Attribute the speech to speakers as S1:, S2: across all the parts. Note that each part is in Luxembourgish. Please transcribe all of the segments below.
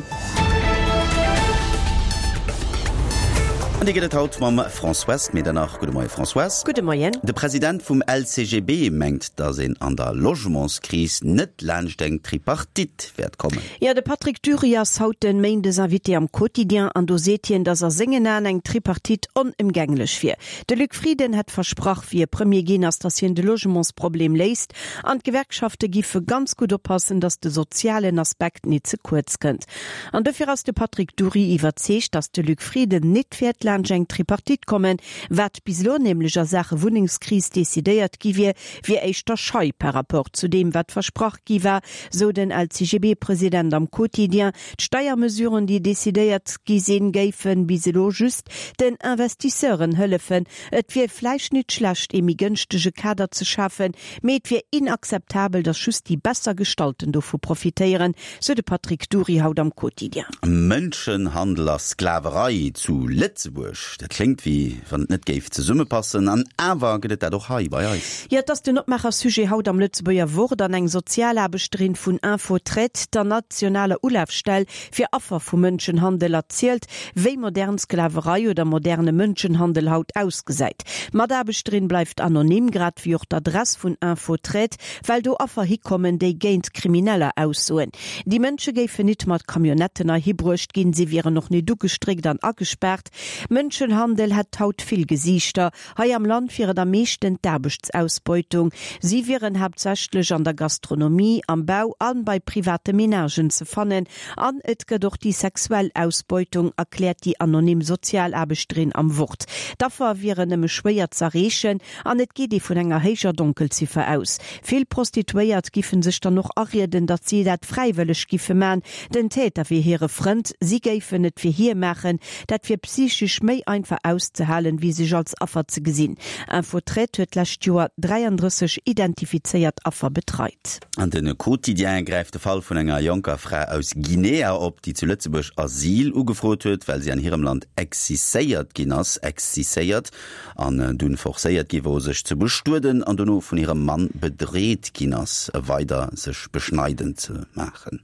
S1: Presserevue. An déi gëtt et haut mam Françoise Medernach. Gudde Moie Françoise.
S2: Gudde Moien.
S1: De President vum LCGB mengt, datt een an der Logementskris net laanscht eng Tripartite wäert kommen.
S2: Jo, de Patrick Dury ass haut den Méindes Invité am Quotidien an do seet hien, datt a sengen Aen eng Tripartite onëmgänglech wier. De Luc Frieden hätt versprach, wéi e Premier ginn ass, datt hien de Logementsproblem léist an d'Gewerkschafte giffe ganz gutt oppassen, datt de sozialen Aspekt nit ze kuerz kënnt. An dofir ass de Patrick Dury iwwerzeegt, datt de Luc Frieden nit wäert laanscht eng Tripartite kommen. Wat bis elo nämlech a Saache Wunnengskris decidéiert gi wier, wier éischter schei par rapport zu deem, wat versprach gi war, sou den LCGB-President am Quotidien. D'Steiermesuren, déi decidéiert gi sinn, géife bis elo just den Investisseuren hëllefen. Et wier vläicht nit schlecht, ee méi gënschtege Kader ze schafen, mee et wier inakzeptabel, datt just déi besser Gestallten dovu profitéieren, sou de Patrick Dury haut am Quotidien.
S1: Mënschenhandel a Sklaverei zu Lëtzebuerg, dat kléngt wéi wann et net géif zesummepassen, an awer gëtt et dat och hei bei eis.
S2: Jo, et ass den Opmaacher-Sujet haut am Lëtzebuerger Wort an eng Sozialaarbechterin vun Info-Traite, der nationaler Ulafstell fir Affer vu Mënschenhandel, erzielt, wéi modern Sklaverei oder moderne Mënschenhandel haut ausgesäit. D'Mataarbechterin bleift anonym, grad wéi och d'Adress vun Info-Traite, well do Affer hikommen, déi géint Krimineller aussoen. Déi Mënsche géifen nit mat Camionnetten heihi bruecht ginn, si wieren och nit ugestréckt an agespaart. Mënschenhandel hätt haut vill Gesiichter. Hei am Land wier et am meeschten d'Aarbechtsausbeutung. Si wieren haaptsächlech an der Gastronomie, am Bau a bei private Menagen ze fannen. An et gëtt och déi sexuell Ausbeutung, erkläert déi anonym Sozialaarbechterin am Wort. D'Affer wieren nëmme schwéier z'erreechen an et geet ee vun enger héijer Donkelziffer aus. Vill Prostituéiert giffen sech dann och arieden, datt si dat fräiwëlleg giffe man. Den Täter wier hire Frënd, si géifen et fir hie maachen. Dat wier psychesch méi einfach auszehalen, wéi sech als Affer ze gesinn. Info-Traite huet d'lescht Joer 33 identifizéiert Affer betreit.
S1: An de Quotidien gräift de Fall vun enger jonker Fra aus Guinea op, déi zu Lëtzebuerg Asyl ugefrot huet, well si an hirem Land exciséiert ginn ass, exciséiert, an dunn forcéiert gi wor, sech ze bestueden an dono vun hirem Mann bedreet ginn ass, weider sech beschneiden ze maachen.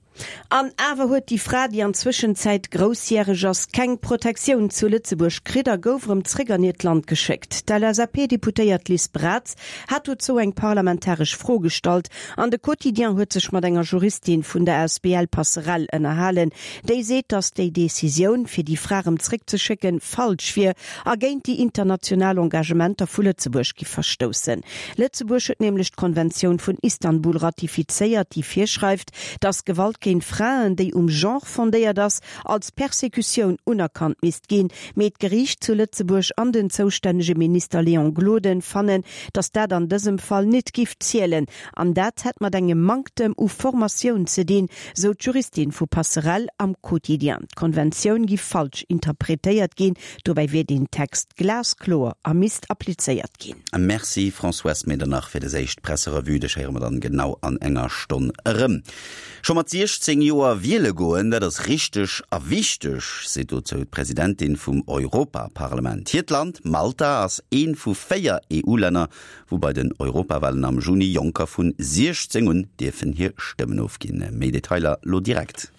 S2: An awer huet déi Fra, déi an Zwëschenzäit groussjäreg ass, keng Protektioun zu Lëtzebuerg kritt a gouf erëm zréck an hiert Land geschéckt. D'LSAP-Deputéiert Liz Braz hat dozou eng parlamentaresch Fro gestallt an de Quotidien huet sech mat enger Juristin vun der asbl Passerell ënnerhalen, déi seet, datt déi Decisioun, fir déi Fra erëm zréckzeschécken, falsch wier a géint déi international Engagementer vu Lëtzebuerg giff verstoussen. Lëtzebuerg huet nämlech d'Konventioun vun Istanbul ratifizéiert, déi virschreift, dass Gewalt géint Fraen, déi um Genre fondéiert ass, als Persekutioun unerkannt misst ginn. Mee d'Geriicht zu Lëtzebuerg an den zoustännege Minister Léon Gloden fannen, dass dat an dësem Fall nit giff zielen. An dat hätt mat engem Manktem u Formatioun ze dinn, sou d'Juristin vu Passerell am Quotidien. D'Konventioun giff falsch interpretéiert ginn, dobäi wier deen Text glaskloer a misst applizéiert ginn.
S1: Merci Françoise Medernach fir des éischt Presserevue. Dech héiere mer dann genau an enger Stonn erëm. Scho mat 16 Joer wiele goen, dat ass richteg a wichteg, seet dozou d'Presidentin vum Europaparlament. Hiert Land, Malta, ass ee vu 4 EU-Länner, wou bei den Europawalen am Juni Jonker vun 16 un dierfen hir Stëmmen ofginn. Méi Detailer lo direkt.